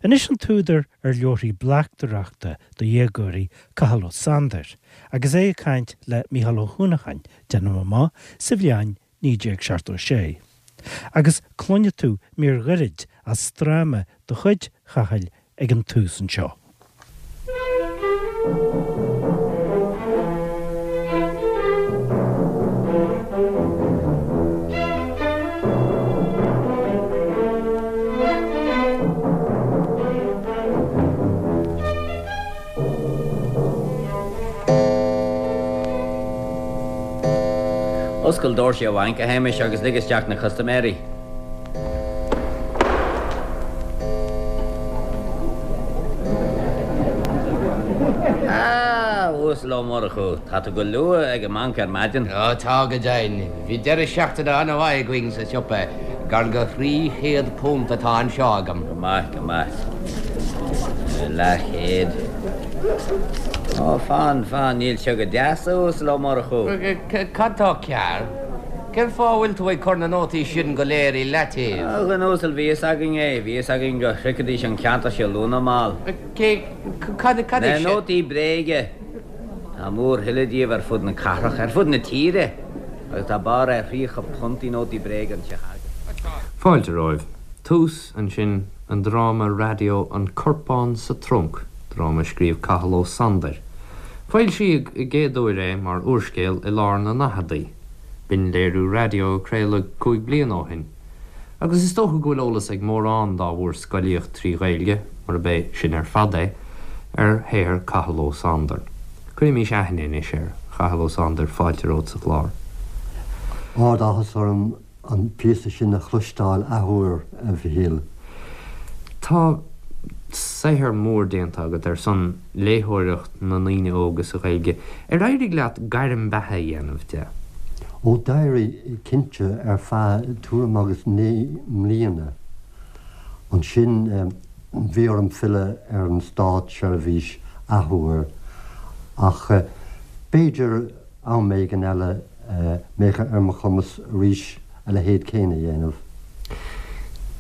Anois an t-údar ar leabharthaí bleachtaireachta do dhéagóirí, Cathal Ó Sándair, agus é ag caint le Mícheál Ó hUanacháin, déanaim amach, sa bhliain 1976. Agus cluinfidh tú mír ghairid as dráma de chuid Chathail ag an tús anseo. Oscail doirse an bhainc, a Shéamais, agus lig isteach na custaiméirí. A Uasail Ó Murchú, tá tú go luath ag an mbanc ar maidin. Ó tá go deimhin. Bhí deireadh seachtaine an-mhaith againn sa siopa. Gar go £300 atá anseo agam. Go maith, go maith. Leathchéad. Ó, fan, fan, níl seo go deas, a Uasail Ó Murchú. Cad tá cearr? Cén fáth a bhfuil tú ag cur na nótaí sin go léir i leataobh? A dhuine uasail, bhí fhios againn é, bhí fhios againn go shroichfidís an ceantar seo luath nó mall. Cé, cad, cad é sin? Na nótaí bréige. Tá mórthuile díobh ar fud na cathrach, ar fud na tíre, agus tá barr ar £30 i nótaí bréige anseo againn. Fáilte romhaibh. Tús, ansin, an dráma raidió An Corpán sa Trunc, dráma a scríobh Cathal Ó Sandair. Foilsíodh i gcéad uair é mar úrscéal i lár na ndaicheadaí. B'in léiriú raidió a craoladh 5 bliana ó shin. Agus is dócha go bhfuil eolas ag mórán dá bhfuair scolaíocht trí Ghaeilge, murab é sin ar fad é, ar shaothar Cathal Ó Sándair. Cuirimís aithne anois ar Chathal Ó Sándair, fáilte romhat sa chlár. Ard-áthas orm an píosa sin a chloisteáil athuair, a Mhichíl. Tá saothar mór déanta agat ar son léitheoireacht na ndaoine óga sa Ghaeilge. Ar éirigh leat gairm beatha a dhéanamh de? Ó d'éirigh, cinnte, ar feadh tuairim agus 9 mbliana. Ansin bhí orm filleadh ar an státseirbhís athuair, ach b'fhéidir am éigin eile mbeadh ar mo chumas arís a leithéid céanna a dhéanamh.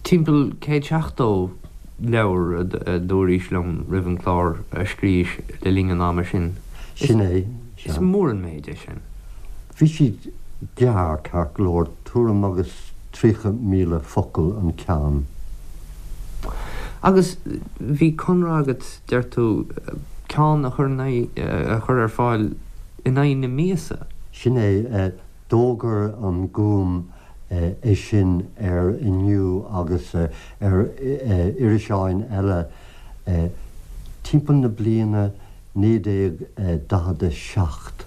Timpeall 170 leabhar, a dúraís liom roimh an gclár, a scríobhais le linn an ama sin. Sin é, sea. Is mór an méid é sin. Bhí siad gearr, ceart go leor, tuairim agus 30,000 focal an ceann. Agus bhí conradh agat, deir tú, ceann a chur in aghaidh, a chur ar fáil in aghaidh na míosa? Sin é. D'fhógair an Gúm é sin ar Inniu agus ar iriseáin eile timpeall na bliana 1947.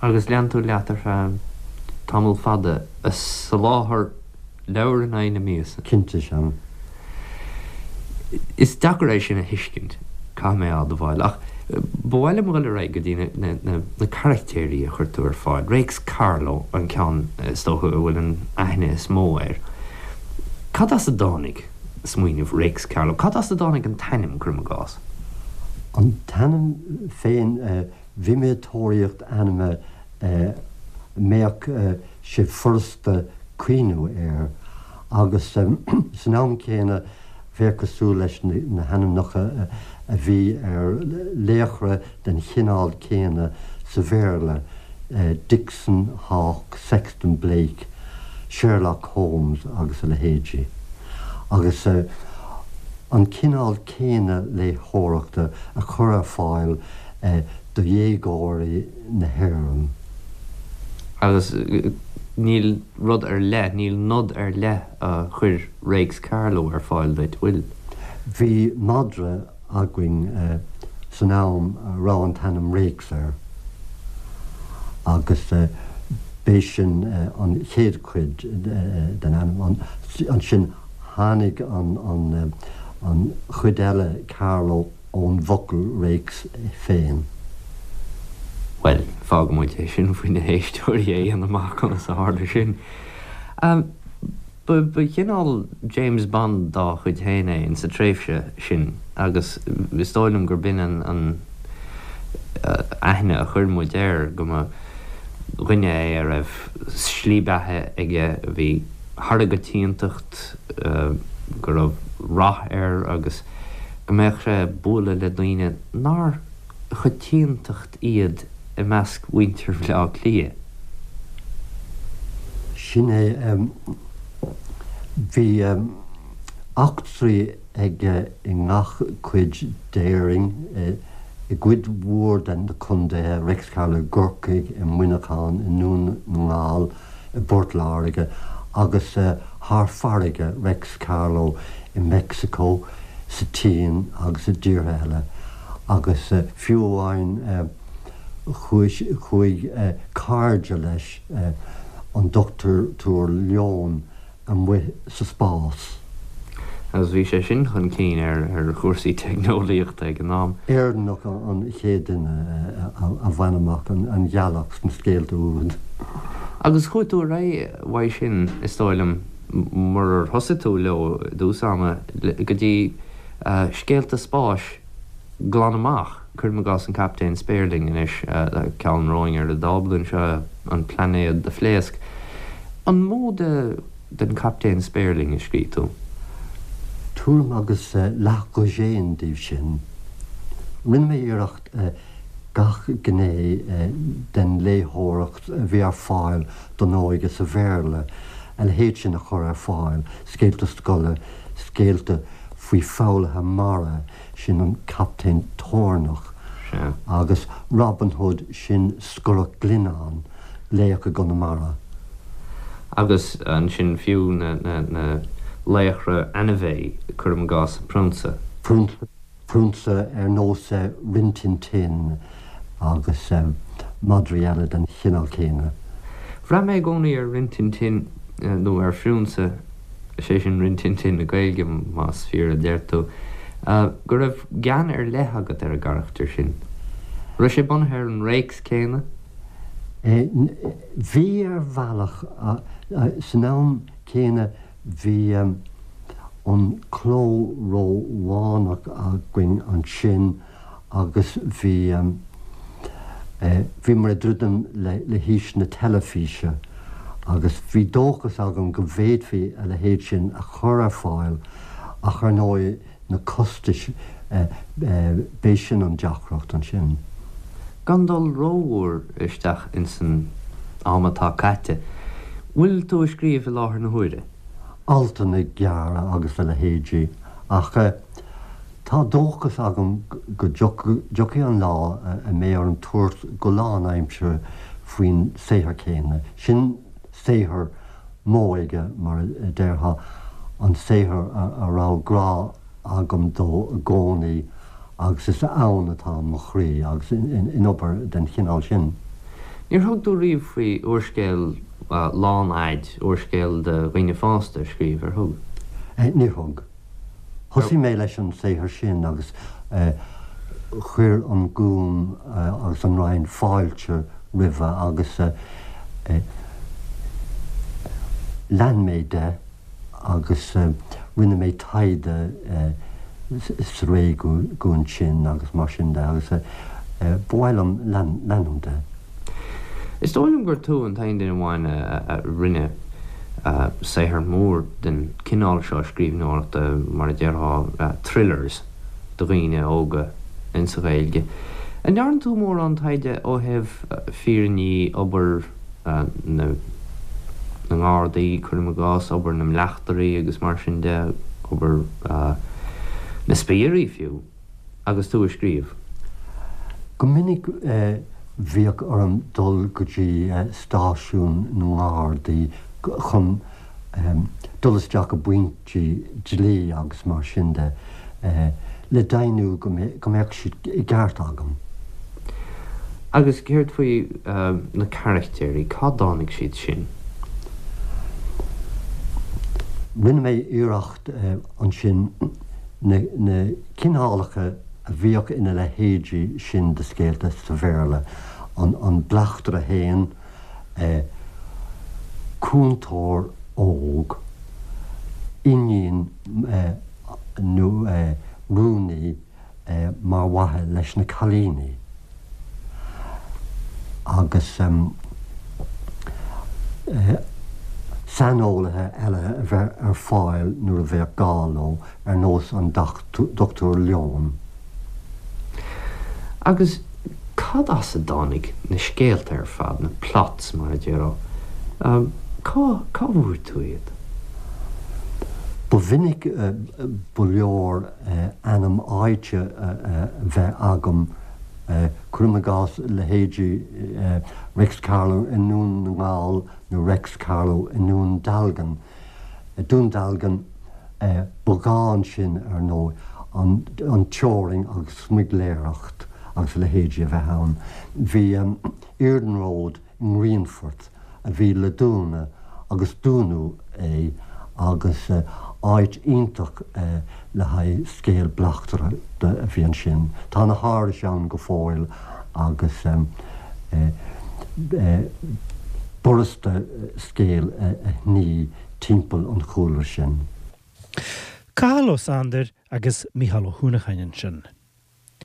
Agus lean tú leat ar feadh tamall fada ag soláthar leabhar in aghaidh na míosa. Cinnte, sea. Is deacair é sin a thuiscint, caithfidh mé a admháil, ach ba mhaith liom dhul ar aghaidh go dtí na carachtéirí a chuir tú ar fáil. Réics Carló an ceann is dócha a bhfuil an aithne is mó air. Cad as a dtáinig smaoineamh Réics Carló? Cad as a dtáinig an t-ainm, cuirim i gcás? An t-ainm féin, bhí mé ag tóraíocht ainme a mbeadh sé furasta cuimhniú air agus san am céanna bheadh cosúil leis na hainmneacha a bhí ar laochra den chineál céanna sa Bhéarla, Dixon, Hawke, Sexton Blake, Sherlock Holmes agus a leithéidí. Agus an cineál céanna léitheoireachta a chur ar fáil do dhéagóirí na hÉireann. Agus níl rud ar leith, níl nod ar leith a chuir Réics Carló ar fáil duit, bhfuil? Bhí madra againn san am a raibh an t-ainm Réics air agus b'é sin an chéad chuid den ainm. Ansin tháinig an chuid eile, Carló, ón bhfocal réics féin. Bhuel, fágfaidh muid é sin faoi na héisteoirí a dhéanamh amach conas a tharla sin. Ba chineál James Bond dá chuid féin é insa tréimhse sin agus is dóigh liom gur b'in an aithne a chuir muid air, go mba dhuine é a raibh slí beatha aige a bhí thar an gcoitiantacht. go raibh rath air agus go mbeadh sé ag bualadh le daoine nár choitiantacht iad i measc mhuintir Bhaile Átha Cliath. Sin é. Bhí eachtraí aige i ngach cuid d'Éirinn, i gcuid mhór de na contaetha, Réics Carló i gCorcaigh, i Muineachán, i nDún na nGall, i bPort Láirge, agus thar farraige, Réics Carló i Meicsiceo, sa tSín agus i dtíortha eile. Agus fiú amháin chuaigh cairde leis, an Dochtúir Leon, amuigh sa spás. Agus bhí sé sin chun cinn ar chúrsaí teicneolaíochta ag an am. Éireannach an chéad duine a bhain amach an ghealach sna scéalta úd. Agus chuaigh tú ar aghaidh uaidh sin, is dóigh liom, murar thosaigh tú leo i dtús ama, go dtí scéalta spáis glan amach, cuirim i gcás an Captaen Spéirling anois, ceann romhainn ar an dtábla anseo, an plainéad a phléasc. An mó de den Chaptaen Spéirling a scrígh tú? Tuairim agus leathdhosaen díobh sin. Rinne mé iarracht gach gné den léitheoireacht a bhí ar fáil don óige sa Bhéarla, a leithéid sin a chur ar fáil, scéalta scoile, scéalta faoi foghlaithe mara, sin an Captaen Toirneach, agus Robin Hood, sin Scorach Ghlinneáin, laoch i gConamara. Agus ansin fiú na laochra anime, cuirim i gcás an Prionsa. Prionsa ar nós Rin Tin Tin agus madraí eile den chineál céanna. Bhraith mé i gcónaí ar Rin Tin Tin, nó ar Phriúnsa, is é sin Rin Tin Tin na Gaeilge, más fíor a deir tú, go raibh gean ar leith agat ar an gcarachtar sin. Raibh sé bunaithe ar an réics céanna? Bhí ar bhealach. San am céanna bhí an cló Rómhánach againn ansin agus bhí, bhíomar ag druidim le haois na teilifíse agus bhí dóchas agam go bhféadfaí a leithéid sin a chur ar fáil ach ar ndóigh na costais, b'é sin an deacracht ansin. Gan dul rómhór isteach ins an am atá caite, bhfuil tú ag scríobh i láthair na huaire? Altanna gearra agus a leithéidí ach tá dóchas agam go dtiocfaidh an lá a mbeidh orm tabhairt go lánaimseartha faoin saothar céanna. Sin saothar m'óige, mar a déarfá, an saothar a raibh grá agam dó i gcónaí agus is ann atá mo chroí agus in obair den chineál sin. Níor thug tú riamh faoi úrscéal lánfhaid, úrscéal do dhaoine fásta a scríobh, ar thug? Níor thug. Thosaigh mé leis an saothar sin agus chuir an Gúm agus an Roinn fáilte roimhe agus lean mé de agus rinne mé taighde sa réigiún sin agus mar sin de agus ba mhaith liom leanúint de. Is dóigh liom gur tú an t-aon duine amháin a rinne saothar mór den cineál seo scríbhneoireachta, mar a déarfá, thrillers do dhaoine óga insa Ghaeilge. An ndearna tú mórán taighde ó thaobh fírinní obair na nGardaí, cuirim i gcás, obair na mbleachtairí agus mar sin de, obair na spiairí fiú? agus tú ag scríobh? Go minic bhíodh orm dul go dtí stáisiún na nGardaí chun dul isteach i bpointí dlí agus mar sin de le deimhniú go mbeadh siad i gceart agam. Agus céard faoi na carachtéirí, cá dtáinig siad sin? Rinne mé iarracht ansin na cineálacha a bhíodh ina leithéidí sin de scéalta sa Bhéarla, an bleachtaire féin, cúntóir óg, iníon nó rúnaí mar mhaithe leis na cailíní agus. Saineolaithe eile a bheith ar fáil nuair a bheadh gá leo, ar nós an Dr Leon. Agus cad as a dtáinig na scéalta ar fad, na plots mar a déarfá? Cá, cá bhfuair tú iad? Ba mhinic ba leor ainm áite a bheith agam, cuirim i gcás leithéidí Reics Carló i nDún na nGall nó Reics Carló i nDún Dealgan. Dún Dealgan, ba ghá ansin, ar ndóigh, an teorainn agus smuigléireacht agus a leithéidí a bheith ann. Bhí iarnród i nGrianfort a bhí le dúnadh agus dúnadh é agus áit iontach le haghaidh scéal bleachtaireachta a bhí ansin. Tá na hárais ann go fóill agus b'fhurasta scéal a shnoí timpeall an chúlra sin. Cathal Ó Sándair agus Mícheál Ó hUanacháin ansin.